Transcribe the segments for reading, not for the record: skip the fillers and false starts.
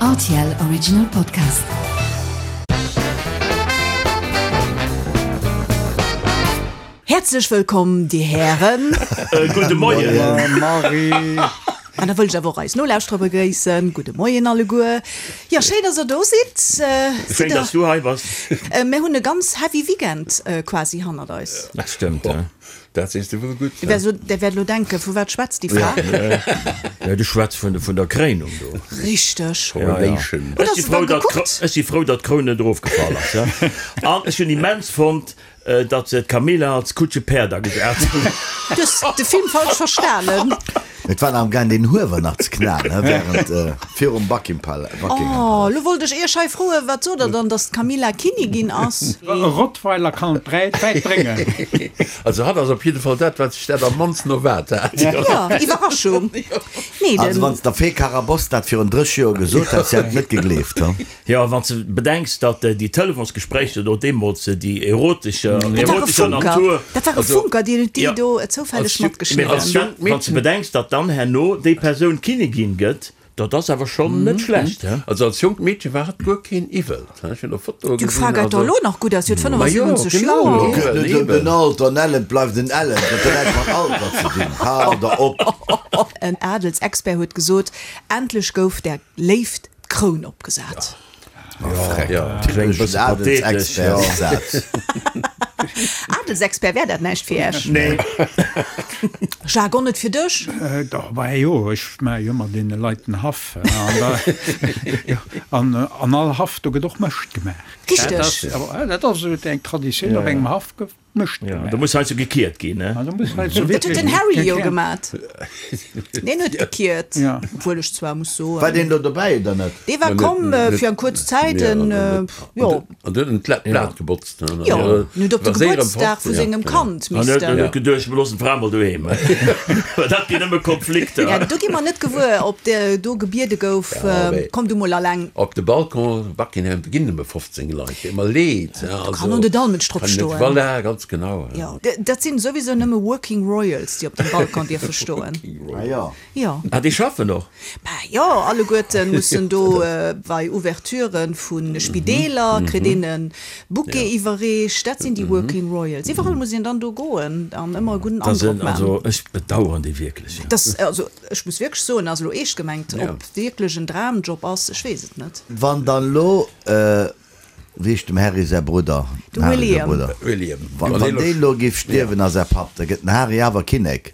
Rtl Original Podcast. Häerzlech wëllkomm, Dir Hären. Gudde Moien. Marie. An da wëll ech awer och eis Nolauschterer begréissen. Gudde Moien alleguer. Jo, schéin, dass Der do sidd. Schéin, dass du hei bass. Mir hunn e ganz heavy Weekend quasi hannert eis. Dat stëmmt. Dat sees de wuel gutt. Der wäert elo denken, Vu wat schwätzt déi Fra? Jo, du schwätz vun der Kréinung do. Richteg. Coronation. Ech si frou, datt ech si frou, datt d'Kroun net erofgefall ass. An ech hunn immens fonnt, datt se d'Camilla als Kutschepäerd agesat hunn. Du hues de Film falsch verstanen. Et war nach am gaang den Huewer nach ze knalen, he, während virum Buckingham Palace. Oh, lo wollt ech iech hei froen, wat sot der dann, dass d'Camilla Kinnigin ass? E Rottweiler kann et wäit bréngen. Also hatt ass op jidde Fall dat, wat sech dat am mannsten erwaart hat. Jo, Iwwerraschung. Nee, Also den. wann s der Fee Carabosse dat virun 30 Joer gesot hätt, si hätt et net gegleeft, he. Jo, wann s de bedenks, datt déi Telefonsgespréicher do deemools, déi erotescher, Dat war e erotescher Funker, Natur. dat war e Funker, deen huet déi do zoufälleg matgeschnidden. Mee wann s de bedenks, datt dann herno déi Persoun Kinnigin gëtt, dat ass awer schonn net schlecht, he? Also als jonkt Meedche war hatt guer keen Iwwel, he, ech hunn och Fotoe Déi gesinn, Fra gesäit also. doch elo nach gutt aus, si huet Ma jo, 75 genau, Joer. Et geet net ëm den Alter, en Ellent bleift en Ellent, dat huet näischt mat Alter ze dinn, hal der op! En Adelsexpert huet gesot, endlech gouf der Léift d'Kroun opgesat. Typeschen Adelsexpert-Saz. Adelsexpert, wär dat näischt fir Iech? Nee. Jacques, och net fir dech? Dach, bah jo, ech maache jo ëmmer deene Leit den Haff. An an all Haff, do gëtt och Mëscht gemaach. Richteg. Dat ass esou eng Traditioun op engem Haff. Mëscht Ja, gemaach. do muss heiansdo gekiert ginn, ne? Ah, do muss heiansdo Dat huet den wierklech Harry jo gekiert. gemat. Deen huet gekiert. Ja. Obwuel ech zwar muss soen. War deen do dobäi oder net? Dee war komm fir eng kuerz Zäit, en, jo. An huet en d'Blat gebotzt, ne? Jo, en huet op de Gebuertsdag vu sengem Kand An huet missten. huet geduecht, mir loossen d'Fra mol doheem. Well dat ginn nëmme Konflikter. Ja, do gi mer net gewuer, ob de do gebiede gouf, komm du mol alleng. Op de Balcon Buckingham ginn nëmme 15 Leit. Deet mer leed. Do kann och net all Mënsch drop stoen. Voilà, ganz genau. Jo, dat sinn souwisou nëmme Working Royals, déi op dem Balcon dierfe stoen. Ah jo. Jo. Ah, déi schaffen och? Bah jo, alleguerte mussen do bei Ouverturen vu Spideeler, kritt een e Bouquet iwwerreecht. Dat sinn déi Working Royals. Iwwerall muss een dann do goen an ëmmer e gudden Androck maachen. Also ech bedauern déi wierklech. Dass, also ech muss wierklech soen, ass elo eescht gemengt, ob wierklech en Dramjob ass, ech weess et net. Wann dann elo Wéi heescht dem Harry säi Brudder? De Dem Harry säi William. Brudder. William. Wann wann deen elo géif stierwen a säi Papp, da gëtt den Harry awer Kinnek.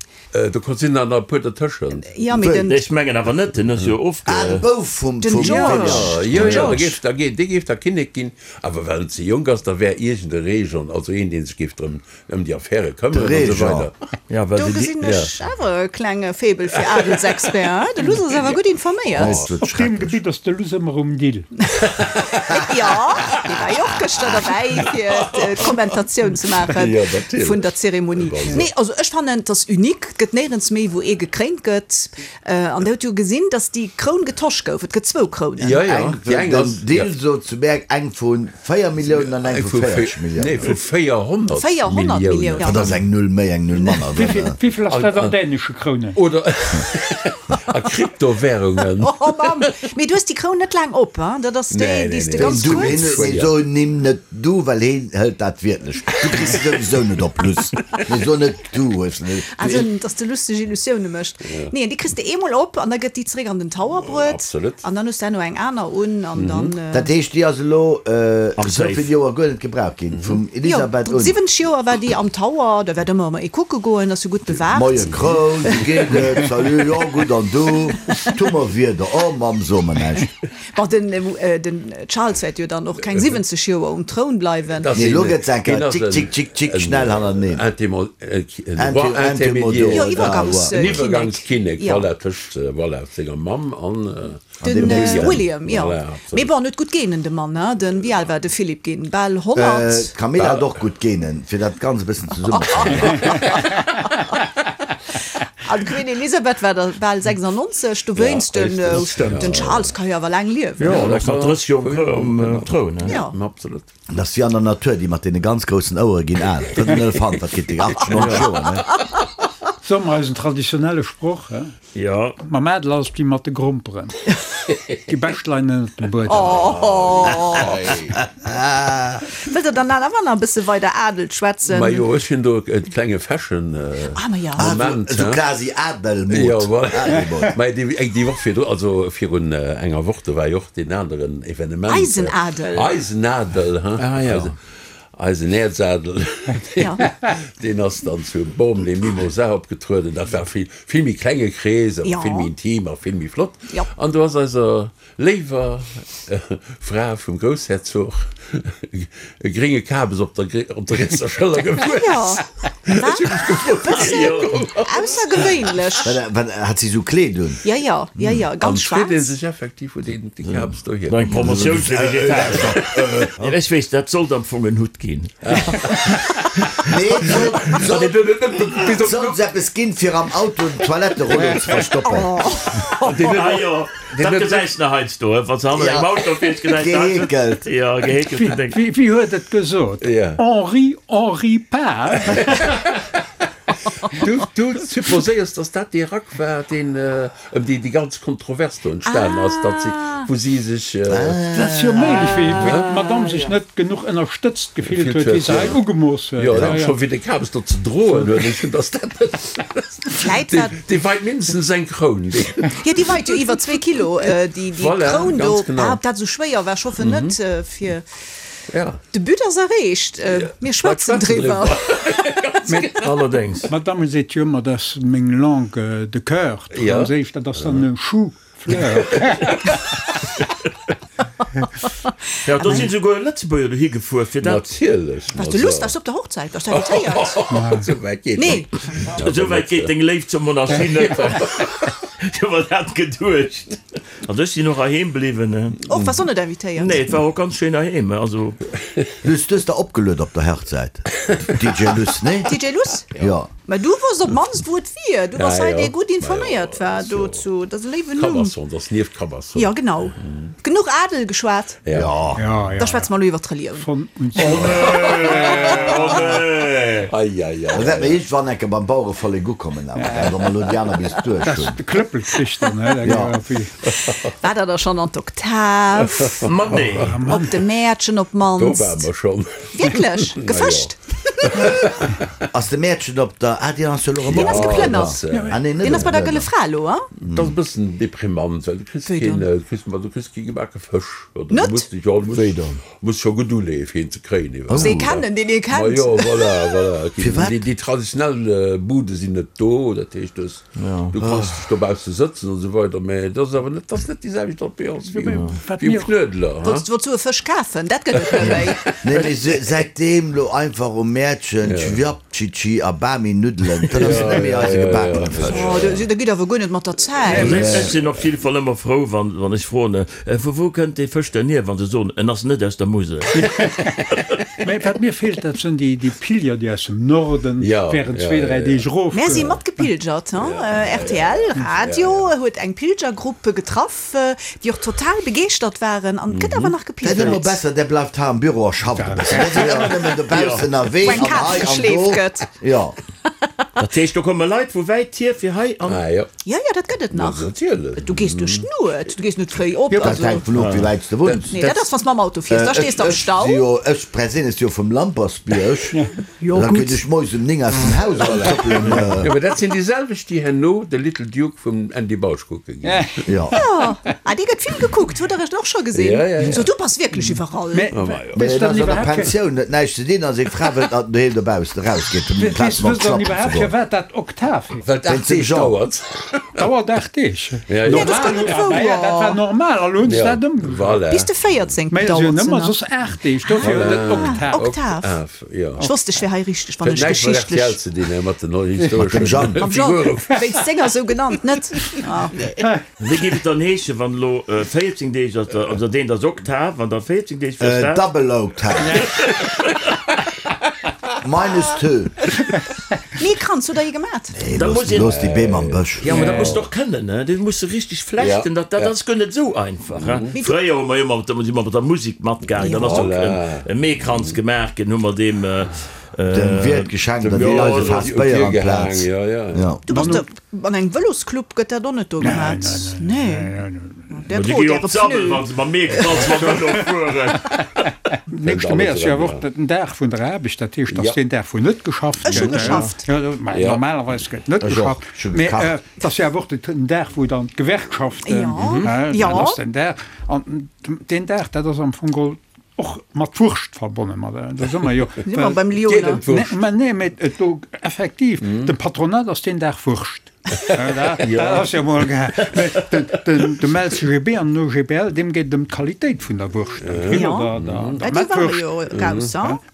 Do kon sinn der nach e puer dertëschent. Jo, mee den. Ech mengen awer net, den ass jo ofge. Ah, de Bouf vum Den vum George. William. Jo, Den jo, da George. géif da dee géif da Kinnek ginn, awer well en ze jonk ass, da wär iergend e Régent, also een, dee sech géif drëm Ëm déi Affäre këmmeren an esou weider. Ja, well Do se déi. gesinn ech awer e klenge Faible fir Adelsexpert, hein? De Luss ass awer gutt informéiert. Op deem Gebitt ass de Luss ëmmer um Dill. Jo, dee war jo och gëschter derbäi, fir d'Kommentatioun ze maache vun der Zeremonie. Nee, also ech fannen, et ass unique. Et gëtt néierens méi, wou ee gekréint gëtt. An der huet jo gesinn, datt déi Kroun getosch gouf. Et gëtt zwou Krounen. Jo, jo, Eng déi eng den ass. Deal sot zu Berg, eng vu 4 Milliounen an eng vu 40 Milliounen. Nee, vu 400 400 Milliounen. Dat ass eng Null méi, eng Null manner. Wéivill ass dat an dänesche Krounen? Oder a Kryptowährungen. Oh Mamm! Mee du hues déi Kroun net laang op, hein? Dat ass déi, déi s de ganz Du, kuerz. mee so nimm net du, well heen hëlt dat wiertlech. Du kriss se souwisou net op, Luss. Mee so net du hues net. Also, dass de lusteg Illusioune mécht. Nee, déi kriss de eemol op an da gëtt déi zeréck an den Tower bruet. Absolut. An dann hues de herno eng aner un an dann. Dat heescht, déi ass elo Am esou Safe. vill Joer guer net gebraucht ginn, vum Elisabeth Jo, un. 70 Joer war déi am Tower, da wäert ëmmer ee kucke goen, ass jo gutt bewaacht. Moie Kroun, wéi geet et? Salut, jo gutt an du? Tu mer Wieder, oh Mamm, so mer näischt. Bon, den, den Charles wäert jo dann och keng 70 Joer um Troun bleiwen. Nee, elo gëtt se eng Kéier tschick, tschick, tschick, tschick, schnell hannerteneen. Jo, Iwwergangskinnek. Iwwergangskinnek, voilà, tëscht, voilà, senger Mamm an Den William, jo. Mee bon, en huet gutt Genen, de Mann, hein. Den, wéi al war de Philipp ginn? Bal 100? D'Camilla hat och gutt Genen, fir dat Ganzt e bëssen zesummenzebréngen. An d'Queen Elisabeth war da bal 96, dowéinst den, den Charles ka jo awer laang liewen. Jo, en ass nach 30 Joer um Troun. Jo. Absolut. Dat ass wéi an der Natur, déi mat deene ganz groussen Ouere ginn al. Dat en Elefant, dat kritt déi 80, 90 Joer, ne? Soe mer eisen traditionelle Sproch, he? Jo. Mam Adel ass et wéi mat de Gromperen, déi bescht leien ënnert dem Buedem. Wëllt der dann awer nach e bësse weider Adel schwätzen? Majo, ech hunn do e klenge Fashion Moment. Esou quasi Adelmod. Jo, voilà. Mä déi Woch virdru, also virun enger Woch, do war jo och deen aneren Evenement. Eisen Adel. Eisen Adel, he? Ah jo. Eisen Äerzadel, deen ass dann zu Bormes-les-Mimosas opgetrueden. Dat war vill, vill méi klenge Krees, awer vill méi intim a vill méi flott. An do ass eiser léiwer Fra vum Groussherzog e grénge Kabes op der, op der rietser Schëller gewuess. Ech hu mech gefrot, wéi déi do komm ass. Aussergewéinlech. Wat, hat si esou Kleed un? Jo, jo, jo, jo, ganz schwaarz. An freet ee sech effektiv, wou deen Kabes dohier Eng Promotioun fir Vegetarier. Ech weess, dat sollt am Fong en Hutt ginn. Nee, et sollt, et sollt eppes ginn, fir am Auto den Toiletterullo ze verstoppen. Ah jo, dat gesäis de heiansdo, wann s de hannert engem Auto fiers, gesäis de heiansdo. Geheekelt. Jo, geheekelten Déng. Wéi huet et gesot? Henri, Henri pas. Du supposéiers, dass dat dee Rack war, deen Ëm déi déi ganz Kontrovers do entstanen ass, datt si, wou si sech. Dat ass jo méiglech, wéi d'Madame sech net genuch ënnerstëtzt gefillt huet, wéi se hei ugemooss huet. Jo, an scho wéi de Kabes do ze droen huet, ech hunn, datt dat net. Vläit war. Déi weit mindestens eng Kroun, déi. Jo, déi weit jo iwwer zwee Kilo, déi Kroun do. Voilà, ganz genau. Ob dat esou schwéier war, ech hoffen net, fir. Ja. De But ass erreecht, mir schwätzen driwwer. Allerdéngs. D'Madame seet jo ëmmer, dat ass meng Langue de coeur, d'Franséisch, dat ass dann e Chou-fleur. Jo, do sinn souguer Lëtzebuerger dohi gefuer fir dat. Natierlech. Waars de Luss, waars du op der Hochzäit? Waars du invitéiert? Esou wäit geet Nee. Esou wäit geet deng Léift zur Monarchie net. Ech hu mer dat geduecht. Also ech sinn och heiheem bliwwen. Och, waars och net invitéiert? Nee, et war och ganz schéin heiheem, also. Luss, du hues der opgeluet op der Hochzäit, DJ Luss, nee? DJ Luss? Jo. Mä du wosst op d'mannst wou et wier, du bass hei dee gutt informéiert war dozu, dat ass e léiwen Numm. Cabasson, dat ass nieft Cabasson. Jo, genau. Genuch Adel geschwat? Jo. Da schwätze mer elo iwwer d'Relioun. Von und zu. Oh nee, oh nee. Ei, ei, ei. Da wäerte mer iergendwann enke beim Bauerevollek ukommen, awer, gell, wa mer elo déi aner bis duerch hunn. De Klëppel kricht dann, hä? Jo. War der da schonn an d'Oktav? Ma nee. Op de Mäertchen op Do ware d'mannst? mer schonn. Wierklech? Gefëscht? Ass de Mäertchen op der, ah, deen ass jo elo erëm Deen ass geplënnert. Ah nee, net Deen ass bei der Gëlle geplënnert. Fra elo, a? Dat ass e bëssen deprimant, well du kriss Wéi keen, dann? du kriss, ma du kriss kee gebake Fësch. Oder du Net? muss dech, jo, du muss, Wéi dann? muss scho gutt uleeë fir een ze kréien Muss iwwerhaapt. ee kennen, deen ee Ma kennt. jo, voilà, voilà. Et ginn, Firwat? déi, déi traditionell Bude sinn net do, dat heescht, du hues, du kanns dech dobausse sëtzen an esou weider, mä et ass awer net, et ass net déi selwecht Ambiance wéi um, Wat wéi um mir. Knuedler, ha? Wollts, wollts du e Fësch kafen? Dat gëtt et net méi. Nee, mee säitdeem lo einfach um Mäertchen Cevapcici a Bami Nuddelen, dat ass net méi eise gebakene Fësch. Oh, da da gitt awer guer net mat der Zäit. Ech sinn op jidde Fall ëmmer frou, wann, wann ech froen, Vu wou kënnt dee Fësch denn hier, wann se soen, en ass net aus der Musel. Mä wat mir feelt, dat sinn déi Pilger, déi aus dem Norden während zwee, dräi Deeg erof. Mär si matgepilgert, rtl Radio huet eng Pilgergrupp getraff, déi och total begeeschtert waren an et gëtt awer nach Dat ass ëmmer gepilgert. besser, där bleift hei am Büro a schafft e bëssen. Där sinn ëmmer nëmmen dobaussen ënnerwee Wou eng an Kaz hei an geschleeft do. gëtt. Jo. Dat heescht, do komme Leit vu wäit hier fir hei an. Ah jo. Jo, jo, dat gëtt et nach. Natierlech. Du gees duerch d'Nuet, du gees net fréi op. Dat Also, hänkt vun of, wéi wäit s de wunns. nee, dat ass, wann s mam Auto fiers, da stees de am Ech si Stau. jo, ech perséinlech si jo vum Lampersbierg. Jo, Da gutt. kéint ech moies um 9 aus dem Haus eraustrëppelen. Jo, mä dat sinn déi selwecht, déi herno de Little Duke vum Andy Bausch kucke ginn. Jo. Jo, ah, dee gëtt vill gekuckt, hutt Der et och scho gesinn? Ja, ja, ja. So, du bass wierklech iwwerall. Mä Mä weess et dann ass an der iwwerhaapt fir. Pensioun huet näischt ze dinn a seng Fra wëllt, datt en doheem dobaussen erausgeet, um Weess Plaz mam wësst dann Schlappen ze iwwerhaapt goen. firwat dat Oktav heescht? Well et Wéinst 8 dem Deeg Jean. dauert. Dauert 8 Deeg. Ja, ja. Nee, dat ass guer net Normal, ja, dat war wouer. normal, a lo hunn se Ja, dat ëmgeschriwwen. voilà. Bis de 14. Mä se dauert hunn se ëmmer nach. soss 8 Deeg, dofir huet et Oktav. Oktav. Oktav, jo. Ech wosst, ech wär hei richteg, wann Huet ech näischt mat geschichtlech. RTL ze dinn, mat den Mat dem historeschen Jean. Mam Jean, Figuren. wéinst senger sou genannt, net? Ah. Wéi géif et dann heeschen, wann elo 14 Deeg ass, also deen ass Oktav, an da 14 Deeg fir dat? Double Oktav. Minus two. Nee, Kranz, hutt der ee gemat? Nee, Da looss, muss een. looss déi Beem am Bësch. Jo, ma dat muss de och kënnen, ne? Dat muss de richteg flechten, dat, dat ass guer net esou einfach, he? Fréier hu mer jo mat, si mer mat der Musek matgaangen, dann ass och e Meekranz gemaach ginn, hu mer deem. Dem Wiert geschenkt an déi eis e Faass Béier amplaz. Du bass do an engem Vëlosclub, gëtt dat och net do gemat? Nee. Där Déi drot gi äre op d'Sabbel, Pneu. wa se mam Meekranz mam Vëlo fueren. Nächste Mee ass jo awer och den Dag vun der Aarbecht, dat heescht, dass deen Dag wou net geschafft Ech hu gëtt. geschafft. Jo, mä normalerweis gëtt net Ech och. geschafft. Ech hu Mee gekacht. et ass jo awer och den Dag wou dann d'Gewerkschaften, Jo. dat ass den Dag. An deen Dag, dat ass am Fong geholl Och mat Wurscht verbonne mat, do si mer jo. Si mer beim Lyoner. Mä nee, mä et do effektiv, dem Patronat ass deen Dag Wurscht. Dat ass jo mol ge. Mä den, dem LCGB an den OGBL, deem geet et ëm d'Qualitéit vun der Wurscht, der Grill oder der Mettwurscht.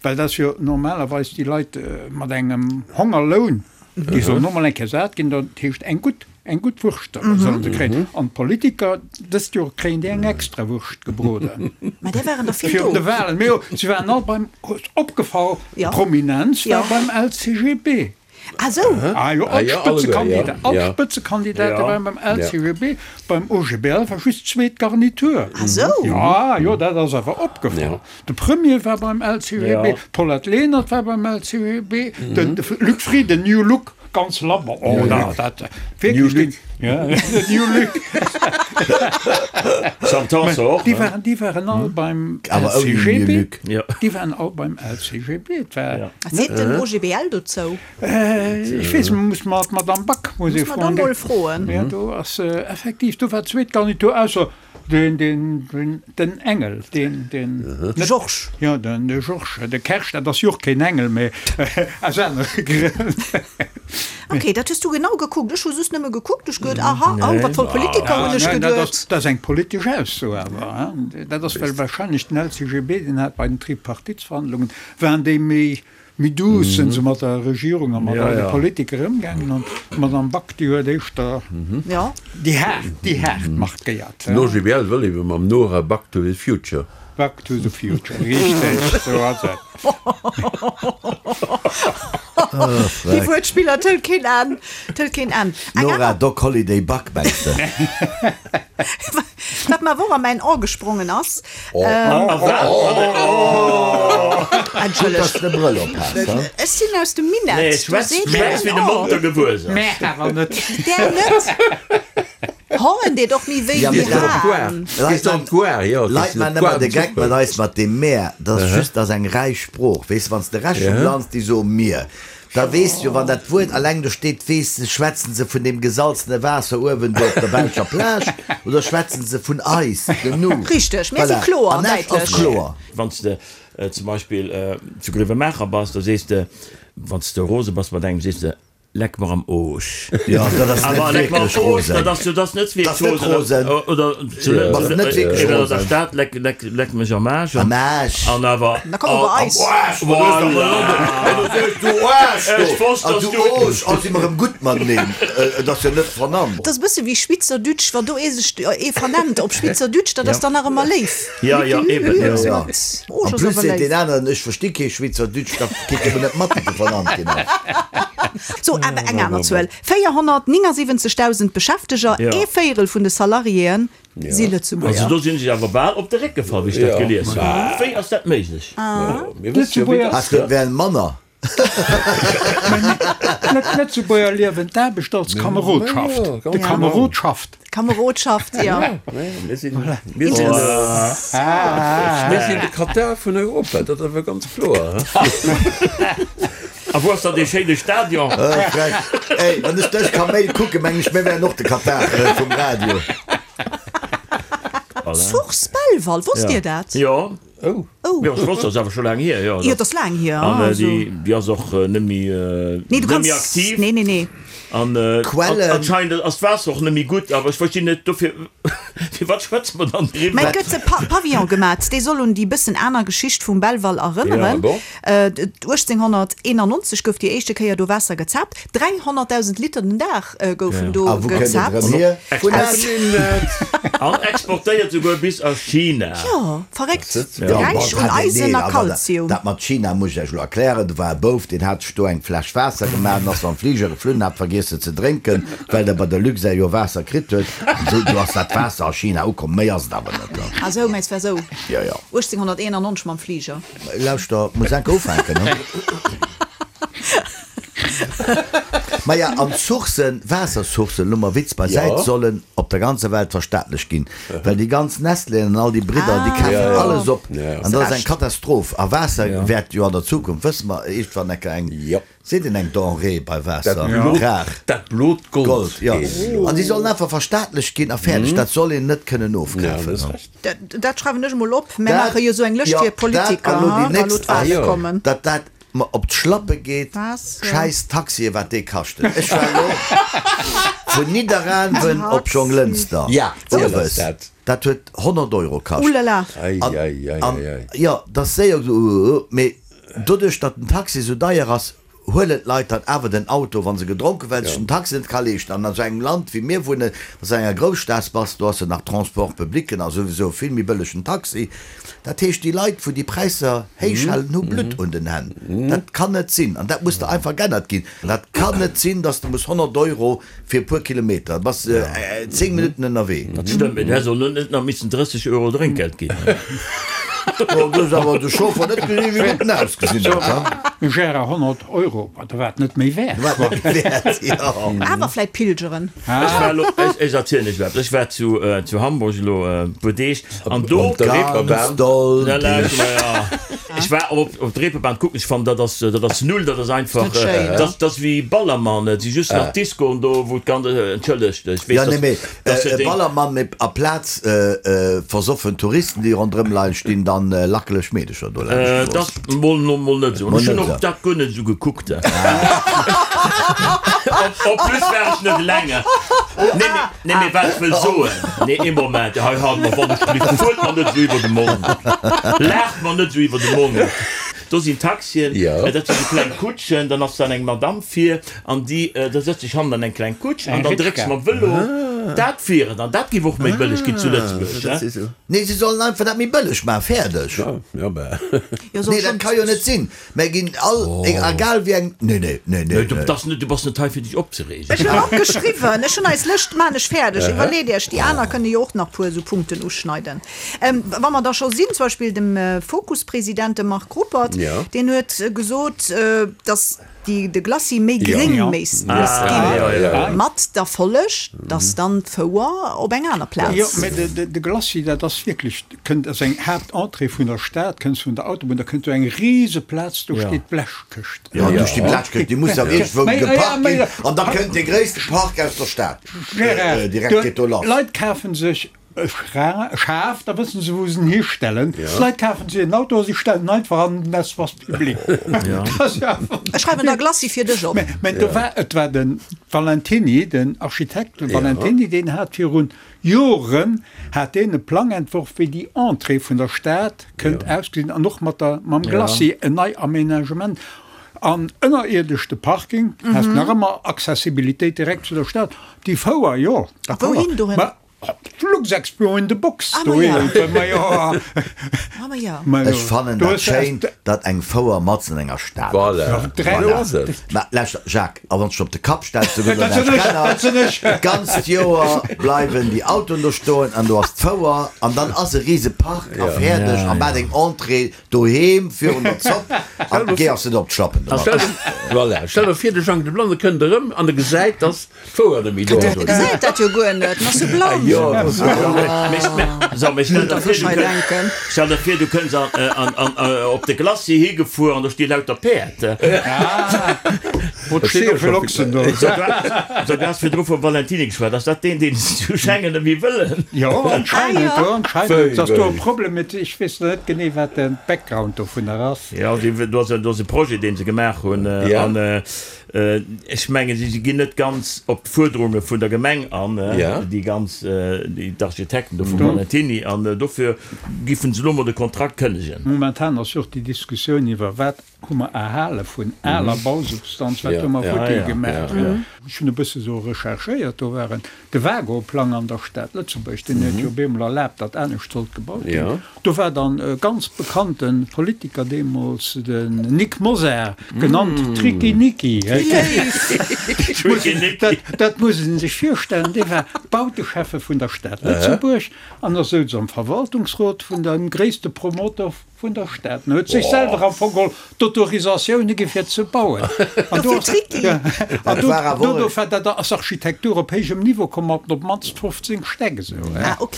Well dat ass jo normalerweis déi Leit mat engem Hongerloun, déi sollen och mol eng Kéier sat ginn, dat heescht eng gutt. Eng gutt Wurscht sollen se kréien. An d'Politiker, dëst Joer kréien déi eng extra Wurscht gebroden. Mä där waren der vill do. Virun de Wahlen. Mee jo, se waren all beim, opgefall, d'Prominenz war beim LCGB. Ah sou. Ah jo, all d'Spëtzekandida, all d'Spëtzekandidate waren beim LCGB. Beim OGBL war just d'zweet Garnitur. Ah sou. Ja, jo, dat ass awer opgefall. De Premier war beim LCGB, d'Paulette Lenert war beim LCGB, de Luc Frieden, New Look, ganz labber, oh na, dat wierklech deen, ja, den New Look. Sam Tanson och, Déi ne? waren, déi waren all beim Awer ouni New LCGB, Look. déi waren all beim LCGB. Et war Wat seet den OGBL dozou? Ech weess, muss mer d'Madame Back muss ee Muss mer da froen. mol froen. Ja, do ass effektiv, do war d'zweet Garnitur, ausser Den, den, den, den Engel, deen, deen. De Georges. Jo, den, de Georges, de Kersch, dat ass jo och keen Engel, mee aus anere Grënn. Ok, dat hues du genau gekuckt. Ech hu just nëmme gekuckt, ech geduet, aha, oh, wat voll Politiker, hunn ech geduet. Dat ass eng politesch Ausso awer, hein. Dat ass, well wahrscheinlech den LCGB, deen hat bei den Tripartitsverhandlungen, waren déi méi, Méi douce sinn se mat der Regierung a mat all de Politiker ëmgaangen an d'Madame Back, déi huet éischter déi haart, déi haart markéiert. Den OGBL wëll ebe mam Nora Back to the Future. Back to the Future, richteg, esou ass et. Déi Wuertspiller, et hëlt keen Enn, et hëlt keen Enn. Nora Doc Holliday Back, mengs de? Wat mer awer och a mäin Ae gesprongen ass. Entschëllegt. Ech sinn aus dem Minett. Nee, schwätz wéi de Monter gewuess ass. Mä awer net. Där net. Hoen deet och méi wéi wéi Haen. Leit maachen ëmmer de Geck mat eis mat deem mär. Dat ass just, dat ass eng räich Sprooch. Weess de, wann s de Rescht vum Land, déi soe mir. Da weess jo, wann dat Wuert alleng do steet, weess de, schwätzen se vun deem gesalzene Waasser uewen do op der belscher Plage oder schwätzen se vun eis, dem Nu? Richteg, mir si Voilà. kloer an An Esch ass däitlech. kloer. Wann s de zum Beispill zu Grevenmacher bass, da sees de, wann s de rose bass mat engem, sees de, Leck mer am Oosch. Jo, dat ass net Awer leck mer am wierklech Oosch, rosen. dat ass jo, dat ass net Dat ass wierklech net rosen. rosen. Oder zu Bass net wierklech oder an der rosen. Stad, leck, leck, leck mech am Aarsch. Am Aarsch. An awer. Da komm op eis. Voilà. Du Aarsch, du! Ech wosst, An dass du du. Oosch, oh, si mer erëm gutt mateneen. Et ass jo net vernannt. Dat ass e bësse wéi Schwitzerdütsch, wann do ee sech ee vernennt op Schwitzerdütsch, dat ass dann nach ëmmer léif. Ja, ja, eben, ja. Ja. Oosch En ass plus awer seet léif. deen aneren, ech versti kee Schwitzerdütsch, da kritt e mol net mat, datt e vernannt ginn ass. Sou, awer eng aner Zuel, 479.000 Beschäfteger, ee Véierel vun de Salariéen si Lëtzebuerger. Also do sinn ech awer bal op de Réck gefall, wéi ech dat gelies hunn. Wéi ass dat méiglech? Lëtzebuerger. Ass dat wären manner? D'Lëtzebuerger liewen d'Aarbecht als Kamerodschaft. De Kamerod schafft. Kamerodschaft, jo. Mir sinn de Katar vun Europa, dat ass awer ganz kloer. A wou ass dann dee schéine Stadion? Frech. Ey, wann ech dech Kaméil kucken, mengen ech, mir wären och de Katar vum Radio. Source Belval, wosst Dir dat? Jo. Oh. Jo, ech wosst, dat ass awer scho laang hier. Jo, Jo, dat ass laang hier. An Also. déi, déi ass och net méi, Nee, du net méi kanns. aktiv. Nee, nee, nee. An Quellen. anscheinend ass d'Waasser och net méi gutt, awer ech verstinn net, dofir, firwat schwätze mer dann Mä driwwer? et gëtt e Pa Pavillon gemat, dee soll un déi bëssen aner Geschicht vum Belval erënneren. Ja, bon. 1891 gouf déi éischte Kéier do Waasser gezaapt. 300.000 Liter den Dag goufen do A wou kënnt et gezaapt. erëm hier? Vun Aus- Esch. An exportéiert souguer bis a China. Jo, verréckt. Ja, Räich bon, un dat, nee, Eisen a awer Kalzium. Dat mat China muss ech Iech elo erklären. Do war e Bouf, deen hat sech do eng Fläsch Waasser gemaach an ass mam Fliger geflunn, hat vergiess se ze drénken, well der bei der Luxair jo Waasser kritt huet. An esou, do ass dat Waasser a China ukomm. Méi ass et awer net. Ah sou, mä et war sou Jo, jo. 1891 mam Fliger. Lauschter, muss enke ufänken, ne? Maja, an d'Sourcen, Waassersourcen, elo mol Witz beisäit, sollen op der ganzer Welt verstaatlecht ginn, well déi ganz Nestléen an all déi Bridder, déi kafen alles op an dat ass eng Katastroph. A Waasser wäert jo an der Zukunft, wësse mer, iergendwann enker eng, seet een eng Denrée bei Waasser, rar. Dat blot Gold, jo. An déi sollen einfach verstaatlecht ginn a fäerdeg. Dat soll een net kënnen ofkafen. Dat schreiwen ech emol op. Mär maache jo esou eng Lëscht fir Politiker, wa elo d'Wale kommen. Dat dat mer op d'Schlappe geet, schäiss Taxien, wat déi kaschten. Ech war elo vun Nidderaanwen op Jonglënster owes, dat huet 100 Euro kascht. An jo, dat ass séier, mee doduerch datt den Taxi esou deier ass, huelen d'Leit dann awer den Auto, wa se gedronken, well sech den Taxi net ka leeschten. An an esou engem Land wéi mir wunnen, wann s de an enger Grousstad bass, do ass jo nach Transport public a souwisou vill méi bëlleg den Taxi. Dat heescht, déi Leit, wou déi Präisser héich halen, hu Blutt un den Hänn. Dat kann net sinn an dat muss da einfach g'ännert ginn. Dat kann net sinn, dass de muss 100 Euro fir e puer Kilometer, da bass de 10 Minutten ënnerwee. Dat stëmmt, mee du häss och net nach missen 30 Euro Drénkgeld ginn. Du hues awer de Chauffer net gesinn, wéi gutt en ausgesinn huet, ha? Gérard, 100 Euro, ma da war et net méi wäert. War et net méi wäert, jo. Awer vläit pilgeren. Ech war elo, ech erzielen iech eppes, ech war zu zu Hamburg elo e puer Deeg an do. Op der Reeperbahn. Ganz doll. Ech war op op der Reeperbahn kucken, ech fannen dat ass dat ass null, dat ass einfach, dat ass wéi Ballermann, et si just nach Discoen do wou d'ganz, entschëllegt, ech weess Jo, nee, mee dass e Ballermann, mee aplaz versoffen Touristen déi ronderëm leien, stinn dann lackeleg Meedecher do laanscht d'Strooss. Dat mol no mol net esou, ech hunn och dat guer net esou gekuckt. En plus war ech net eleng. Nee, mee, nee, mee wat ech wëll soen, nee, ee Moment, hei halt mer wann ech gelift, fuert mer net esou iwwer de Mond, laacht mer net esou iwwer de Mond. Do sinn Taxien, dat sinn esou kleng Kutschen, dann ass dann eng Madamm vir an déi, da sëtzt sech hannen an eng kleng Kutsch an dann drécks mam Vëlo. Dat wier et an dat géif och méi bëlleg ginn zu Lëtzebuerg. Nee, se sollen einfach dat méi bëlleg maachen, fäerdeg. Nee, dat ka jo net sinn. Mär ginn all, egal wéi eng, nee, nee, nee, nee. Du bass net, du bass net hei fir dech opzereegen. Ech hunn opgeschriwwen, ech hunn eis Lëscht, maan ech fäerdeg. Iwwerleet iech, déi aner kënne jo och nach puer esou Punkten uschneiden. Wa mer da scho sinn, zum Beispill dem Fokus-President, de Marc Ruppert, deen huet gesot, datt déi de Glacis méi gréng misst ginn, mat der Folleg, datt dann d'Fouer op eng aner Plaz. Jo, mä de Glacis, dat ass wierklech, kënnt ass eng Haaptentrée vun der Stad, kënns vun der Autobunn, da kënnt do eng rise Plaz, do steet d'Blechkëscht. Jo, do steet d'Blechkëscht, déi muss jo iergendwou geparkt ginn an da kënnt dee gréisste Park aus der Stad direkt, geet do lass. Leit kafe sech E Schaf, da wëssen se wou se en histellen. D'Leit kafen sech en Auto a si stellen en einfach an den Espace public. Ech schreiwen der Glacis fir dech op. Mä do war, et war de Valentiny, den Architekt Valentiny, deen hat virun Joren hat deen e Plang entworf, wéi déi Entrée vun der Stad kënnt ausgesinn an och mat der, mam Glacis en nei Aménagement an ënnerierdesch de Parking, has nach ëmmer Accessibilitéit direkt zu der Stad. Déi Fouer, jo, d'accord. Wouhin dohin? Luxexpo in the box doheem. Ech fannen dat schéin, datt eng Fouer matzen an enger Stad ass. Voilà. Mä lauschter, Jacques, a wann s de op de Kapp stells, do gëtt et näischt geännert. D'ganzt Joer bleiwen déi Autoen do stoen an do ass d'Fouer an dann ass e rise Park a fäerdeg a maach deng Entrée doheem virun der Zopp an geh ass net op d'Schlappen domat. Voilà. Stell der vir, de Jang de Blanne kënnt erëm an e gesäit, datt D'Fouer net méi do ass. E gesäit dat jo guer net, en ass jo blann. Jo, en ass jo blann. So, mee stell der vir, du kënns, stell der vir, du kënns an, an, an, op de Glacis higefuer an do sti lauter Päerd. Wou sti jo vill Ochsen do. So, du has virdru vum Valentiny geschwat. Ass dat deen, deen se zu Schengen net méi wëllen? Jo, anscheinend, jo, anscheinend ass do e Problem mit. Ech weess net genee, wat de Background dovunner ass. Jo, do ass, do ass e Projet, deen se gemaach hunn an Ech mengen, si ginn net ganz op d'Fuerderunge vun der Gemeng an, déi ganz, d'Architekten do vum Valentiny, an dofir giffen se elo mol de Kontrakt kënnegen. Momentan ass jo och déi Diskussioun iwwer, wat hu mer erhale vun aler Bausubstanz, wat hu mer futti gemaach. Ech hunn e bësse sou recherchéiert, do waren De Wago-Plang an der Stad Lëtzebuerg, deen huet jo op eemol erlaabt, datt anescht sollt gebaut ginn. Do war dann e ganz bekannte Politiker deemools, den Nic Mosar, genannt Tricky Nicky. Dat muss ee sech virstellen, dee war Bauteschäffe vun der Stad Lëtzebuerg an da souz am Verwaltungsrot vun dem gréisste Promoteur. Vun der Stad. En huet sech selwer am Fong geholl d'Autorisatioune gi fir ze bauen. An do ass, an do, do, do, dat ass Architektur op héijem Niveau komm mat op d'mannst 15 Stäck esou. Ah ok,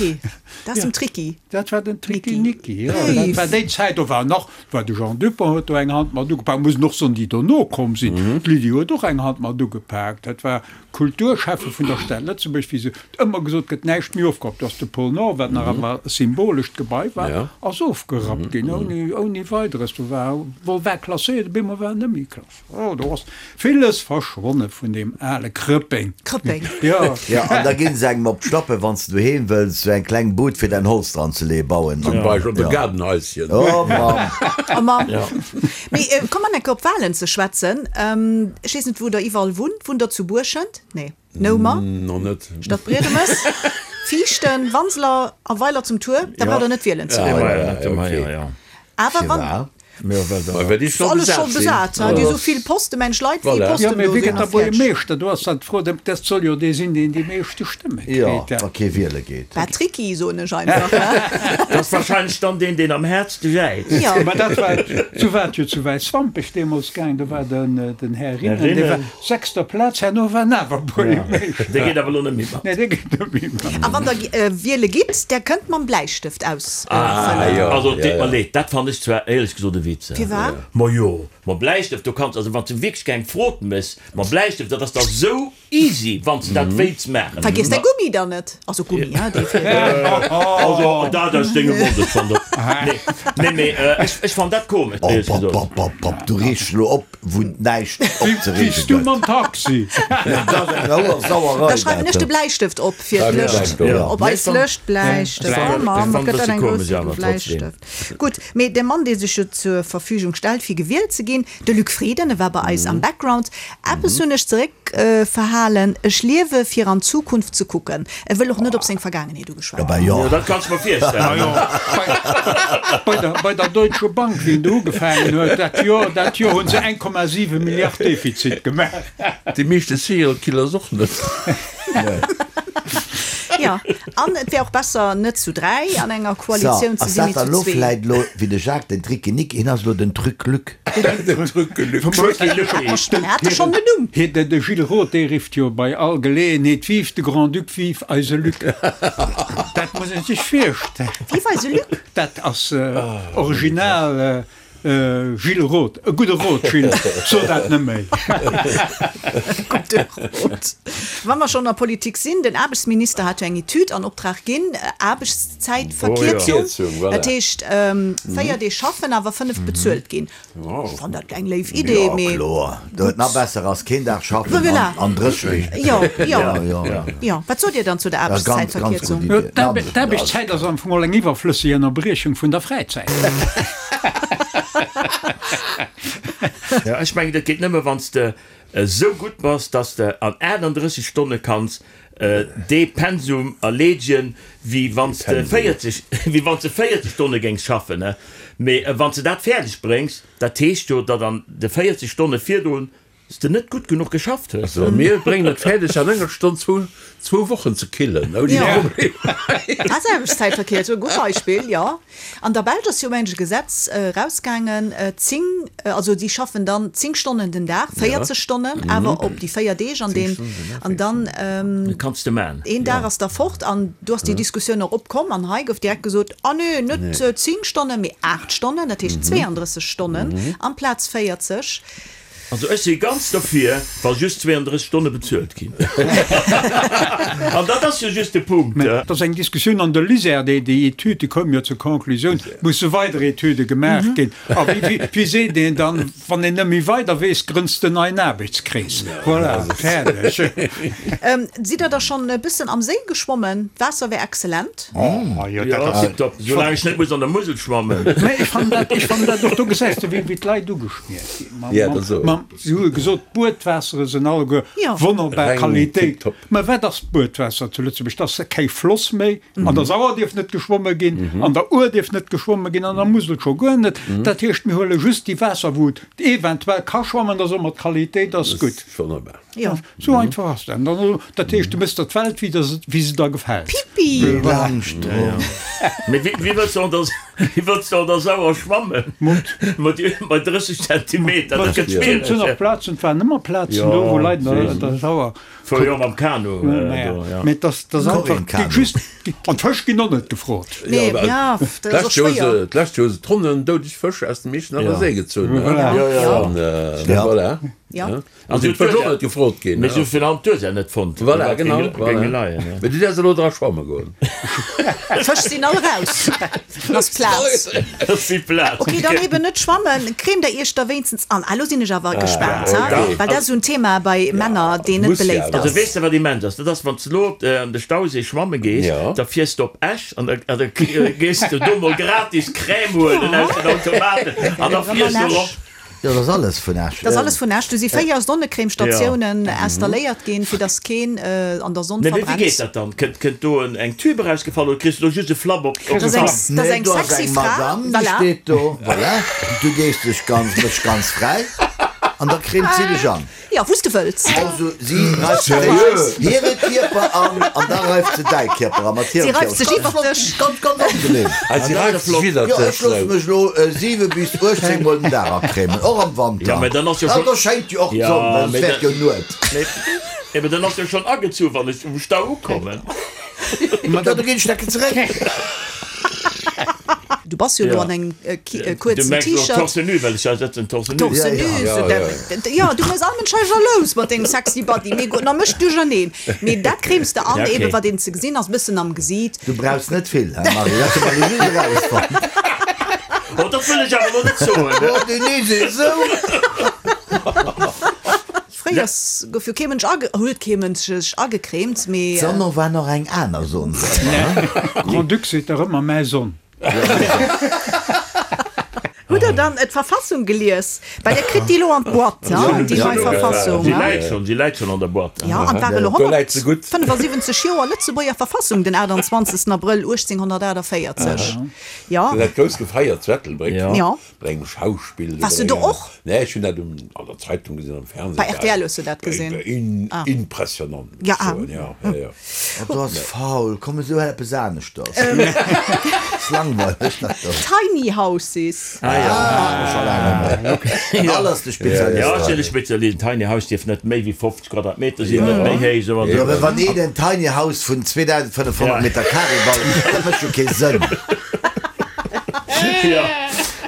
dat ass dem Tricky. Dat war den Tricky Nicky, jo. Dat war déi Zäit, do war nach, war de Jean Dupong huet do eng Hand mat ugepak, muss een och soen, déi dono komm sinn. D'Lydie huet och eng Hand mat ugepak. Dat war Kulturschäffe vun der Stad Lëtzebuerg, wéi se ëmmer gesot gëtt, näischt méi ofgerappt. Do ass de Pôle Nord, wat nach ëmmer e symbolescht Gebai war, ass ofgerappt ginn, ouni, ouni Weideres. Do war, wol war klasséiert, op eemol war en net méi klasséiert. Oh, do ass villes verschwonne vun deem ale Krëppeng. Krëppeng. Jo. Jo, an da ginn se engem op d'Schlappen, wann s de doheem wëlls sou eng kleng Bud fir däin Holz dran ze leeën, bauen. Zum Beispill op e Gaardenhaischen. Oh Mamm. Oh Mamm. Mee komm mer enke op Walen ze schwätzen. Ech weess net wou der iwwerall wunnt. Wunnt der zu Buerschent? Nee. Noumer? Nach net. Stadbriedemes? Viichten? Wanseler a Weiler zum Tuer? Da braucht der net wielen ze goen. Awer wann. Ass alles scho besat, déi esou vill Posten, mensch Leit wéi Posten do sinn. Jo, mee wie gëtt da Buergermeeschter? Do ass dann d'Fro, dat soll jo dee sinn, deen déi meeschte Stëmme kritt. Jo, wa kee wiele geet. Patricky, soen ech einfach, ne? Dat ass wahrscheinlech dann deen, deen am häertste jäizt. Jo. Mä dat war, sou war et jo zu Wäiswampech deemools gaang, do war den, den Här Rinnen, dee war sechster Plaz, herno war en awer Buergermeeschter. Dee geet awer elo net méi mat. Nee, dee geet net méi mat. A wann Der wiele gitt, där kënnt mam Bläistëft ausfëllen. Also, et deet mer leed, dat fannen ech zwar éierlech gesot e Witz. Firwat? Majo, mam Bläistëft, do kanns, also wann s de wierklech keng Frot méchs, mam Bläistëft, dat ass da sou Easy, wann s de dat wéilts maachen. Vergiess däi Gummi dann net. Also Gummi, hein, dee fir. Also dat aus dengem Mond, ech fann dat, nee, nee, mee ech fann dat komesch, Oh, éierlech pop, gesot. pop, pop, pop, du reegs elo op, wou näischt opzereege Wéi s du gëtt. mam Taxi. Dat ass eng hoer Sauerei, Da schreiwen dat. ech de Bläistëft op fir d'Lëscht, op eis Lëscht, Bläistëft, oh Mann, wat gëtt dat eng grouss Bläistëft. Gutt, mee de Mann, dee sech jo zur Verfügung stellt, fir gewielt ze ginn, de Luc Frieden, e war bei eis am Background. Eppes hunn ech zeréckverhalen, Ech liewe fir an d'Zukunft ze kucken. E wëll och net op seng Vergaangenheet ugeschwat ginn. Jo, dat kanns de mer virstellen. Bei der Deutsche Bank, wéi en do ugefaangen huet, dat Joer, dat Joer hu se 1,7 Milliard Defizit gemaach. Déi meeschte Serial Killers och net. Jo, an et wär och besser, net zu 3 an enger So, Koalitioun ze ass sinn, dat mee dann zu elo zwee. vläit elo, wéi de Jacques, den Tricky-Nick, hien ass elo den Truc-Luc. Den Truc-Luc. En hat e schonn en Numm. Hie, de Gilles Roth, dee rifft jo bei all Geleeënheet, Vive de Grand-Duc, vive eise Luc! Dat muss ee sech virstellen. Vive eise Luc? Dat ass original. Gilles Roth, e gudde Rot, Gilles, so dat net méi. Gudde Rot. Wa mer schonn an der Politik sinn, den Aarbechtsminister hat jo eng Etüd an Optrag ginn, Aarbechtszäitverkierzung, dat heescht 4 Deeg schaffen, awer 5 bezuelt ginn. Ech fannen dat eng léif Idee, mee. Jo, kloer. Dat nach besser ass, keen Dag schaffen an 30 Deeg. Jo, jo, jo. Wat sot Dir dann zu der Aarbechtszäitverkierzung? D'Aarbechtszäit ass am Fong och eng iwwerflësseg Ënnerbriechung vun der Fräizäit. Jo, ech mengen, dat geet nëmme, wann s de esou gutt bass, dass de an 38 Stonne kanns dee Pensum erleedegen, wéi wann s de 40, wéi wann s de 40 Stonne géings schaffen. Mee wann s de dat fäerdeg bréngs, dat heescht jo, datt an de 40 Stonne virdrun S de net gutt genuch geschafft hues. Also mir bréngen et fäerdeg an enger Stonn zwou zwou Wochen ze killen ouni Problem. Ah, Aarbechtszäitverkierzung, e gutt Beispill, jo. An der Belsch ass jo mengen ech e Gesetz erausgaangen, 10, also déi schaffen dann 10 Stonnen den Dag, 40 Stonnen, awer op déi 4 Deeg an deen, an dann Kanns de man. een Dag ass da fort. An do ass déi Diskussioun och opkomm an hei gouf direkt gesot, ah nee, net 10 Stonnen, mee 8 Stonnen, dat heescht 32 Stonnen amplaz 40. Also ech si ganz derfir, wa just 32 Stonne bezuelt ginn. An dat ass jo just de Punkt. Mä et ass eng Diskussioun an der LISER, déi déi Etüd, déi koum jo zur Conclusioun, et musse weider Etüde gemaach ginn. A wéi, wéi seet een dann, wann een net méi weider weess, grënns de en neien Aarbechtskrees. Voilà, fäerdeg. Sidd der da schonn e bëssen am Séi geschwommen? D'Waasser wär excellent. Oh jo, dat ass. Tiptop, soulaang ech net muss an der Musel schwammen. Mä ech fannen dat, ech fannen dat och, do gesäis de wéi d'Leit ugeschmiert ginn. Si hu gesot, d'Buedwaassere sinn alleguer wonnerbar Qualitéit. Mä wat ass d'Buedwaasser zu Lëtzebuerg? Dat ass kee Floss méi. An der Sauer dierf net geschwomme ginn, an der Our dierf net geschwomme ginn, an der Musel scho guer net. Dat heescht, mir huele just déi Waasser, wou et eventuell ka schwammen, da soe mer, d'Qualitéit ass gutt. Sou einfach ass dat. Dat heescht, du méchs der d'Welt, wéi se der gefält. Pippi! Mee wéi wëlls de och, dass. Wéi wëlls de an der Sauer schwammen? Mat 30 Zentimeter, dat gëtt schwiereg. Et sinn och Plazen, et waren ëmmer Plazen do, wou Leit an der Sauer. Fuer jo mam Kanu do, jo. Mee et ass einfach just, an d'Fësch ginn och net gefrot. Nee, ja, dat ass och schwéier. D'lescht Joer hu se Tonnen doudeg Fësch aus dem Iechternacher Séi gezunn. Voilà. Ja. An si huet och net gefrot ginn. Mee sou vill han d'Ursaach net fonnt. Voilà, genau. Voilà. Mee du däerfs elo dra schwamme goen. D'Fësch sinn all raus. Ass Plaz. Ass vill Plaz. Ok, dann eben net schwammen. Cremt der iech da wéinstens an. Ah, lo sinn ech awer gespaant, ha? Well dat ass esou en Thema bei Männer, deen net beléift ass. Also weess de wat immens ass? Dat ass wann s de lo an de Stauséi schwamme gees, da fiers de op Esch an da gees de do mol gratis Crème huelen aus den Automaten an da fiers de erop. Jo, dat ass alles vun Esch. Dat ass alles vun Esch. Do si 4 Sonnecrèmestatiounen installéiert ginn, fir dass keen an der Sonn Nee, mee wéi verbrennt. geet dat dann? Kënnt, kënnt do en, eng Tube erausgefall oder kriss du do just e Flapp op, op Dat ass de eng, Kapp? dat ass Nee, eng do ass sexy eng Fra, Madame, déi voilà. steet do, voilà, du gees dech ganz, méchs ganz fräi an da cremt si dech an. Jo, wou s de wëlls. Also si reift Seriö? hire Kierper an an da reift se däi Kierper an mat Si hirem reift sech Kierper. iwwer dech. Ganz, ganz angenehm. Ah, si reift sech widder Jo, dech, ech loosse sou. mech elo 7 bis 18 mol den Dag acremen, och am Wanter. Ja, mä dann ass jo Ah, schon. do schéngt jo och Ja, d'Sonn, well et mä wäert da, jo Nuet. mä, mä dann ass jo schon agezu wann ech um Stau ukommen. Jo, da ginn ech decke zeréck. Du bass jo elo an engem kuerzen T-Shirt. Torse nu, well ech ja sëtzen torse nu. Torse nu, jo, du méchs all Mënsch hei jalous mat dengem sexy Body. Mee gutt, da mécht duercherneen. Mee dat cremes de an, eben wat een ze gesinn ass, bëssen am Gesiit. Du brauchs net vill, he Marie, dat hu mer elo just erausfonnt. Oh, dat wëll ech awer elo net soen. Oh, Denise, esou. Fréiers gouf jo kee Mënsch age, huet kee Mënsch sech agecremt, mee. D'Sonn war nach eng aner Sonn, sot mer, he? Grand-Duc seet dach ëmmer mäi Sonn. Hutt der dann d'Verfassung gelies? Well der kritt déi elo an d'Boîte, hein, déi nei Verfassung. Si läit schonn, si läit schonn an der Boîte. Jo, an et war elo 175 Joer Lëtzebuerger Verfassung, den 28. Abrëll 1848. Jo. Dat grouss gefeiert zu Ettelbréck. Jo. Bei engem Schauspill. Wars du do och? Nee, ech hunn dat um, an der Zeitung gesinn, am Fernseh. Bei rtl hues du dat gesinn? Ah. Impressionant, muss Ja, ech soen, ja, ja, ja. Oh, du ass faul, komm esou eppes aneschters. Ass langweileg dat do. Tiny Houses. Ah ja. Ah, scho laang net méi. Okay. Al ass de Spezialist. Ja, ech sinn de Spezialist. Tiny House dierf net méi wéi 50 Quadratmeter sinn, net méi héich, esou an Jo, esou. mä wann een en Tiny House vun 2500 Meter Carré baut, dat mécht jo kee Sënn. Jo,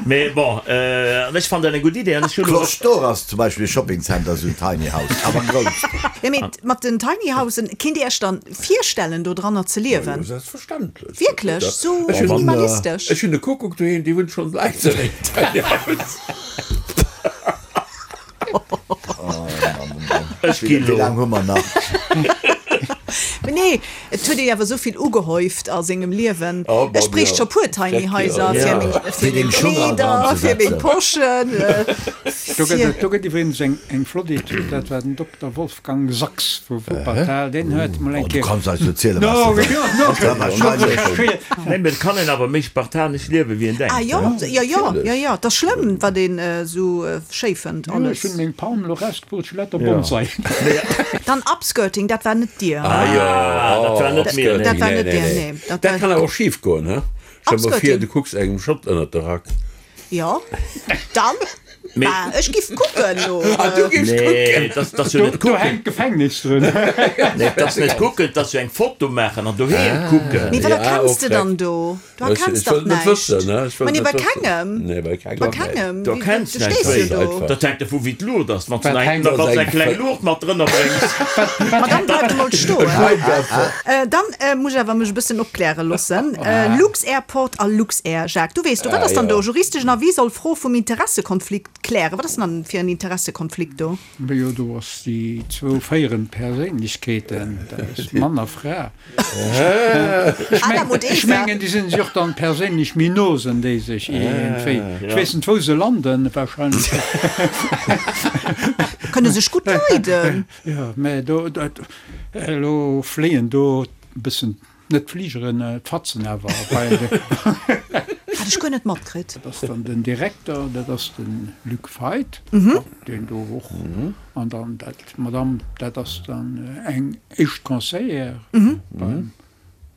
mee bon, an ech fannen dat eng gutt Idee an ech hunn elo. Cloche d'Or ass zum Beispill e Shoppingcenter, esou en Tiny House, awer grouss. Jo, mee mat den Tiny Housen, kinnt Dir Iech dann virstellen, do dranner ze liewen? Jo, selbstverständlech. Wierklech? Sou minimalistesch? Ech hunn e Kuckuck doheem, dee wunnt schonn laang an engem Tiny House. Ech ginn Wéi elo. laang hu mer nach? Mee nee, et huet ee awer esou vill ugehäuft a sengem Liewen. Oh, bon, Ech bréicht jo. scho puer Tiny Haiser Ja. fir meng, Fir fir deng meng Schung all dran Kleeder, ze fir meng setzen. Poschen, Do gëtt fir. et, do gëtt iwwregens eng, eng flott Etüd, dat war den Dokter Wolfgang Sachs vu Wuppertal, deen huet mol eng Oh, du Kéier. kanns eis erzielen, wat No, s de jo, wëlls. no, Dat war wahrscheinlech. Nee, mee et kann een awer méi spartanesch liewen, wéi een denkt. Ah jo, jo, jo, jo, jo, et ass schlëmm, wat een esou schéi fënnt Jo, ech alles. hunn meng Palm elo rausgepullt, ech hunn lauter Bonsai. Dann Upskirting, dat war net dir? Ah jo, dat war net mir, nee. Dat war net dir, nee. Dat kann awer och schif goen, he? Stell mer vir, Upskirting. du kucks engem Schott ënnert de Rack. Jo, dann, bah, ech giff kucken lo. Ah, du giffs kucken? Nee, dat ass jo net Do kucken. hänkt d'Gefängnis drun. Nee, dat ass net kucken, dat ass jo eng Foto maachen an doheem kucken. Mee wat erkenns de dann do? Du erkenns dach näischt. Ma nee, bei kengem. Nee, bei kengem. Bei kengem. Du erkenns Du näischt. stees jo do. Dat hänkt dervu wéi d'Luucht ass. Wann s du Wat hänkt eng, wann s du eng kleng Luucht mat drënner bréngs. Ma dann bleif emol stoen. Dann muss ech awer mech e bëssen opkläre loossen. Lux-Airport a Luxair, Jacques, du weess do, wat ass dann do? Juristeschen Avis soll Fro vum Interessekonflikt klären. Wat ass denn dann fir en Interessekonflikt do? Jo, do ass déi zwou féierend Perséinlechkeeten, dat ass Mann a Fra. Adam und Ech Eva. mengen, déi sinn sech och dann perséinlech méi no, sen déi sech iergendwéi. Ech weess net, wou se landen, wahrscheinlech. Kënne sech gutt leiden. Jo, mä do, dat, elo fléien do e bëssen, net d'Fligeren, d'Fatzen awer bei de. Hat ech guer net matkritt. Dat ass dann den Direkter, dat ass de Luc Feit, deen do och, an dann dat D'Madame, dat ass dann eng éischt Conseillère beim.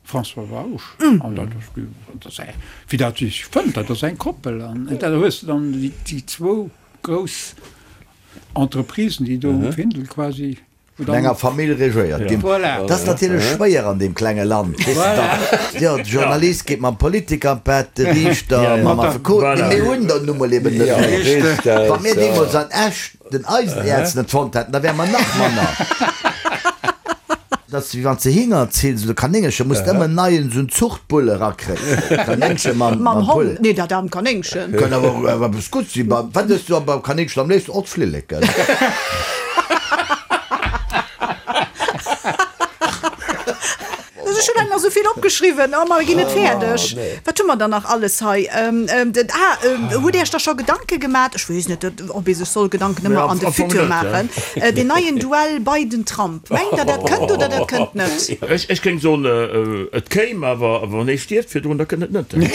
François Bausch. An dat ass, dat ass eng, wéi dat sech fënnt, dat ass eng Koppel. An da hues de dann déi zwou grouss Entreprisen, déi do um Findel quasi. Vun enger Famill regéiert ginn. Voilà. Dat ass natierlech schwéier an deem klenge Land, weess de dach. Jo, de Journalist geet mam Politiker an d'Bett, de Riichter mam Affekot. Mee mir hunn der nu mol eben net méi. Wa mir deemools an Esch den Eisenäerz net fonnt hätten, da wäre mer nach manner. Dat ass wéi wann s de Hinger zills oder Kanéngercher, muss de ëmmer en neien esou en Zuchtbull erakréien. Kanéngche mam Mam Hond. Hond? Nee, dat aarmt Kanéngchen. Kann awer och eppes Gutts sinn. Wat ëss du beim Kanéngchen am léifsten? Och d'Flilleken. Ech hunn nach esou vill opgeschriwwen, oh, mer ginn net fäerdeg. Wat hu mer dann nach alles hei? Ah, hutt Dir Iech da scho Gedanke gemat? Ech weess net, ob ee sech soll Gedanken ëmmer an de Futur maachen. Deen neien Duell Biden-Trump, mengt Der, dat kënnt oder dat kënnt net? Ech géing soen, et kéim, awer wann ee stierft virdrun, da kënnt et net.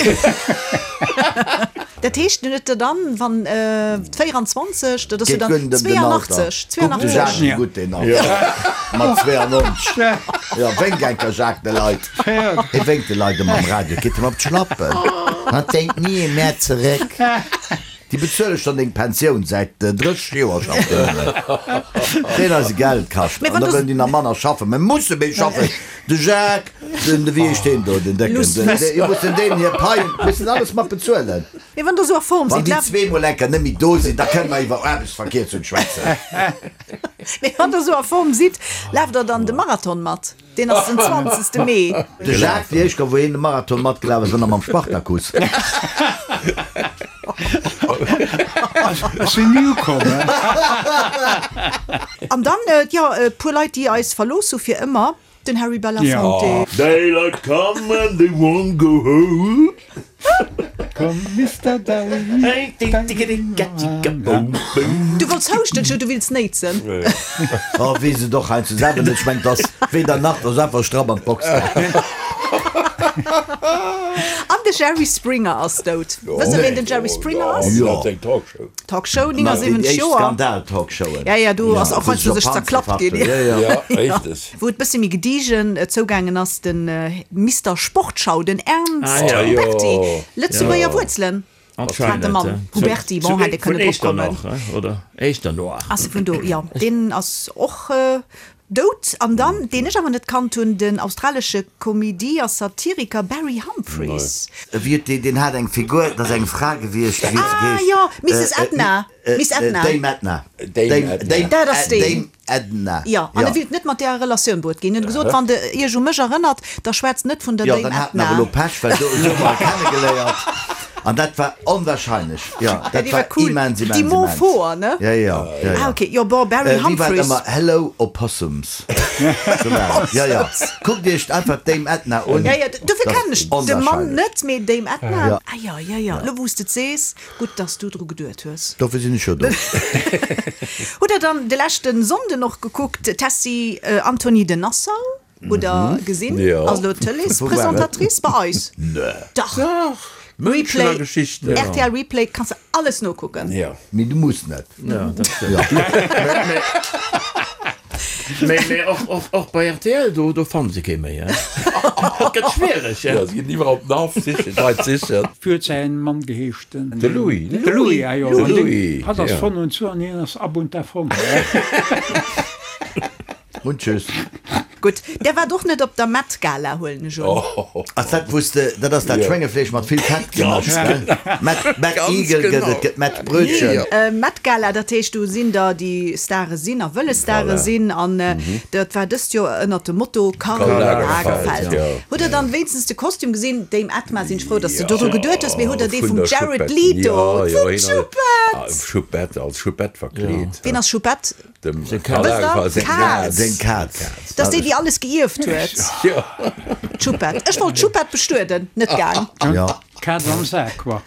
Dat heescht, en huet der dann, wann 24, dat ass jo Geet dann guer net ëm den Alter. 82, Kuck de 82. Jacques, wéi gutt deen ass. Mat 92. Jo, wénk enker Jacques de Leit. Hie wénkt de Leit ëmmer am Radio, et geet him op d'Schlappen. Hatt dénkt ni ee Mäert zeréck. Déi bezuele schonn deng Pensioun säit 30 Joer, schafft deen nëmmen. Deen eise Geld kascht. Mee An wann da du. wëllen déi nach manner schaffen. Mir musse méi schaffen. De Jacques, den, wéi heescht deen do, den Décken, Luss, den, Luss. jo mussen deenen hir Paien, mussen alles mat bezuelen. Mee wann Der esou a Form Wann sidd, déi laaft. zweemol enker net méi do sinn, da kënne mer iwwer Aarbechtsverkierzung schwätzen. Mee wann Der esou a Form sidd, laaft Der dann de Marathon mat? Deen ass den 20. Mee. De Jacques, déi éischt Kéier wou hien de Marathon matgelaf ass, war nach mam Spartakus. Ech sinn ni ukomm. An dann, jo, e puer Leit, déi eis verlooss hu fir ëmmer, den Harry Belafonte. Daylight come and they won't go home. Komm Mister Darling. Du wollts houschten, ech du wills néitsen. Oh, weess et och heiansdo selwer net. Ech mengen, 't ass weder nach, 't ass einfach stramm an d'Box gaangen. An de Jerry Springer ass dout. Wësst der, ween den Jerry Springer ass? Jo. Talkshow, Déi 79 éischt Joer. Skandal-Talkshowen. Ja, ja, do ass och wou heiansdo sech sech op zerklappt Panzer ginn. Ja, ja. Ja, richteg. Wou et bësse méi gediegen zougaangen ass, de Mister Sportschau, den Ernst Ah, ja. Huberty, Jo. Lëtzebuerger Wuerzelen hat de Mann. Huberty, bon, hätt e Vun kënnen drop kommen. Echternach, oder? Echternach. Ass e vun do, jo. Deen ass och dout. An dann, deen ech awer net kannt hunn, den australesche Komedie a Satiriker Barry Humphries. Wéi huet deen, deen hat eng Figur, dat ass eng Fra gewiescht, wéi huet se Ah, geheescht? jo, Misses Edna. Miss Edna. Dame Edna. Dame Edna. Dat ass deen. Dame Edna. Jo, an e willt net mat där a Relatioun bruet ginn. En huet gesot, wann de Iech u mech erënnert, da schwätzt net vun der Jo, Dame dann hat en Edna. awer elo Pech, well do esou hu mer e kennegeléiert. An dat war onwahrscheinlech. Jo, Ja, dat déi war war cool. immens, immens, Déi Mo immens. Foer, ne? Ja, ja, ja, ja. Ah, okay. Jo, bon, Barry Äh, wéi war et Humphries. ëmmer? Hello, Opossums. Sou war et. Ja, ja. Kuckt Iech einfach d'Dame Edna un. Ja, ja, dofir Dat kennen ass ech de Mann onwahrscheinlech. net, mee Dame Edna. Ja. Ah, jo, jo, jo. Elo wou s de et sees. Gutt, dass du dru geduet hues. Dofir sinn ech jo do. Hutt der dann de leschten Sonnden och gekuckt, Tessy Antony de Nassau? Hutt der gesinn? Jo. Ass elo Tëleespresentatrice bei eis. Nee. Dach. Dach. Münchener Replay, Geschichten. RTL Replay, kanns de alles nokucken. Jo. Mee du muss net. Ja, dat stimmt. Mee, mee och, och, och bei rtl, do, do fannen se kee méi, hein. Et gëtt schwiereg, hein. Ja, se ginn iwwerall op den Haff sichen, d'Leit sichen. Wéi huet säin Mann geheescht? Den De Louis. De Louis, ah jo. De Louis, Hatt ass ja. von und zu an hien ass ab und davon. Und tschüss. Gutt, där waart och net op der Met Gala, huelen ech un. Ass dat wous de, dat ass dat Schwéngefleesch mat vill Fett gemëscht, gell? Met, Met Ganz Igel gëtt genau. et, gëtt Met Brötchen. Met Gala, dat heescht do sinn der déi Stare sinn a wëlle Stare Voilà. sinn an dat war dëst Joer ënnert dem Motto Karl Karl Lagerfeld. Lagerfeld, ja. Hutt der dann wéinstens de Kostüm gesinn? Dame Edma, sinn ech frou, dass de dodru Ja, geduet hues, mee hutt der dee vun vum der Jared Choupette. Leto? Ja, ja, Vum hien ass- Choupette! Ah, Choupette, als Choupette verkleet. Ween ass Choupette? Dem Seng Karl Kaz. Lagerfeld seng Kaz. Seng Kaz. Dat ass déi, déi alles geierft huet. Jo. D'Choupette. Ech wollt d'Choupette bestueden, net gaang. Ja. D'Kaz am Sak, quoi.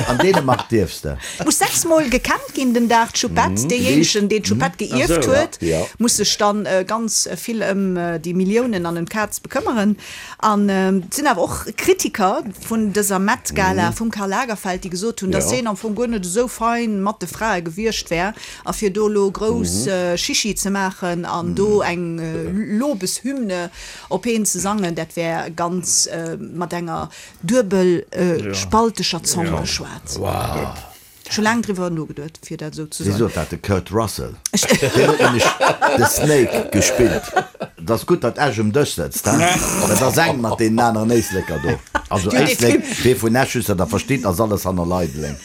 An Dänemark dierfs de. Muss 6 mol gekämmt ginn den Dag, d'Choupette. Deejéinegen, deen d'Choupette geierft huet, muss sech dann ganz vill ëm déi Milliounen an ëm d'Kaz bekëmmeren. An et sinn awer och Kritiker vun dëser Met Gala vum Karl Lagerfeld, déi gesot hunn, datt hien am Fong guer net esou fein mat de Frae gewiescht wär a fir do elo grouss Chichi ze maachen an do eng Lobeshymne op heen ze sangen, dat wär ganz mat enger duebelspalteger Zong geschwat. Ech hu laang driwwer nogeduet, fir dat esou ze Wéi soen. sot dat de Kurt Russell? Deen huet nämlech de Snake gespillt. Et ass gutt, datt Esch um Dësch sëtzt, he? Dat ass eng mat deenen aneren Éisleker do. Also Déi hunn dee Éislek, Film. dee vun Esch, just datt Der verstitt, ass alles hanner Leideleng.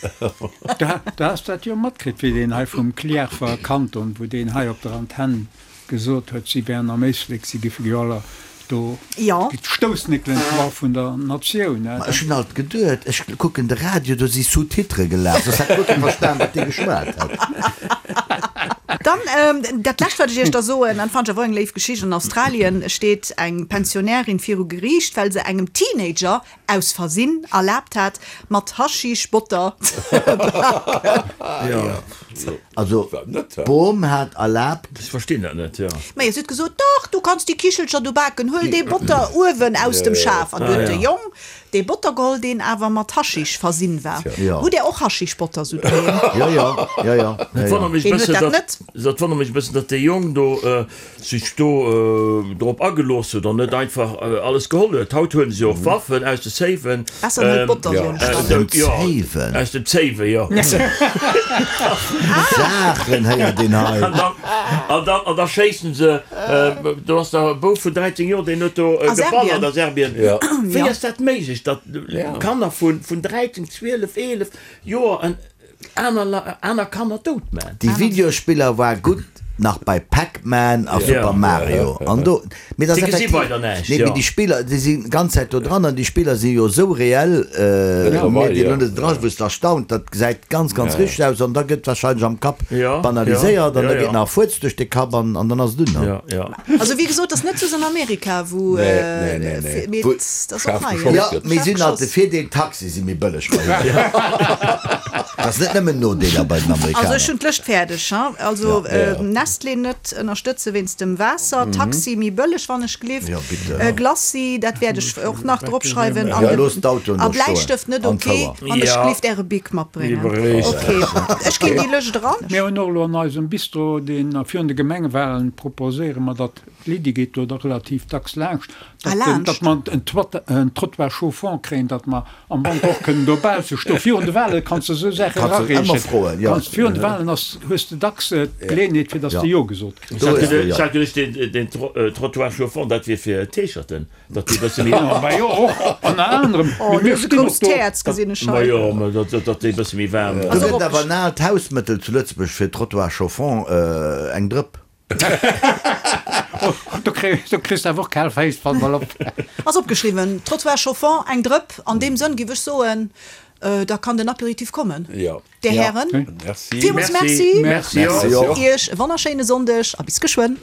Du has dat jo matkritt, wéi deen hei vum Cliärrwer Kanton, wou deen hei op der Antenn gesot huet, si wären am Éislek, si géife jo aller do d'Stoussnéckelen qua vun der Natioun. Ma ech hunn alt geduet, ech kucken de Radio, do si Sous-titrë gelaf, soss hätt guer kee verstan, wat dee geschwat hätt. Dann dat lescht, wat ech Iech da soen, an fannen ech awer och eng léif Geschicht, An Australien steet eng Pensionärin viru Geriicht, well se engem Teenager aus Versinn erlaabt hat, mat Haschisch Botter ze baken. Also d'Bom hat erlaabt. Ech verstinn dat net, jo. Majo, si huet gesot, Dach, du kanns déi Kichelcher do baken, huel dee Botter uewen aus dem Schaf. An du huet de Jong dee Botter geholl, deen awer mat Haschisch versinn war. Hutt Där och Haschischbotter sou doheem? Jo, jo, jo, jo. Dat wonnert mech e Ween huet bëssen, dat datt, net? dat wonnert mech e bëssen, datt dee Jong do sech do drop agelooss huet an net einfach alles geholl huet. Haut huelen se jo och Waffen aus de Safen. Besser net Botter soen ech Aus dem Safen? Aus dem Safe, jo. Saachen héiert een hei. An dann, an da schéissen se, do ass da e Bouf vun 13 Joer, deen huet do geballert a Serbien. Wéi ass dat méiglech, datt Kanner vun 13, 12, 11 Joer en Aner Kanner dout man. Déi Videospiller war gutt nach bei Pac-Man a Super Mario an do, mee dat ass effektiv, nee mee déi Spiller déi sinn ganz Zäit do dran an déi Spiller si jo esou reell, mir déi elo net dran, wou s de erstaunt, dat gesäit ganz ganz richteg aus an da gëtt wahrscheinlech am Kapp banaliséiert an da geet nach e Fuerz duerch de Kapp an dann ass et un. Also wéi gesot, ass net soss an Amerika wou, mee dat ass och hei. Jo, mee si hunn alt de Virdeel, d'Taxie si méi bëlleg bei hinnen. Dat ass net nëmmen Nodeeler bei den Also ech Amerikaner. hunn d'Lëscht fäerdeg, ha. Also Nestlé net ënnerstëtze wéinst dem Waasser, Taxi méi bëlleg wann ech gelift, Glacis, dat wäert ech och nach drop schreiwen, an de Bläistëft net ok, wann ech gelift äre Bic matbréngen. Ok, ech ginn déi Lëscht eran. Mir hunn och elo an eisem Bistro, deen virun de Gemengewahlen proposéiere mer, datt, d'Lydie geet do da relativ dacks laanscht, datt mer en Trottoir chauffant kréien, datt mer am Wanter och kënnen dobausse stoen. Virun de Wahle kanns de esou Saache erareechen. Kanns, virun de Wahlen ass, hues de dacks d'Geleeënheet, fir datt s de Jo gesot kriss. Ech hat geduecht, deen Trottoir chauffant, dat wier fir T-Shirten. Datt déi bësse méi. Ma jo, och ënner anerem. Oh, du hues e grousst Häerz, gesinn ech hei. Ma jo, mä datt déi bësse méi waarm. Do gëtt awer en aalt Hausmëttel zu Lëtzebuerg fir Trottoir chauffant, eng Drëpp. Do kriss de awer och kal Féiss, pass mol op. Ass opgeschriwwen, Trottoir chauffant, eng Drëpp. An deem Sënn giff ech soen, da kann den Apéritif kommen. Dir Hären, villmools Merci. Merci och. Iech e wonnerschéine Sonndeg a bis geschwënn.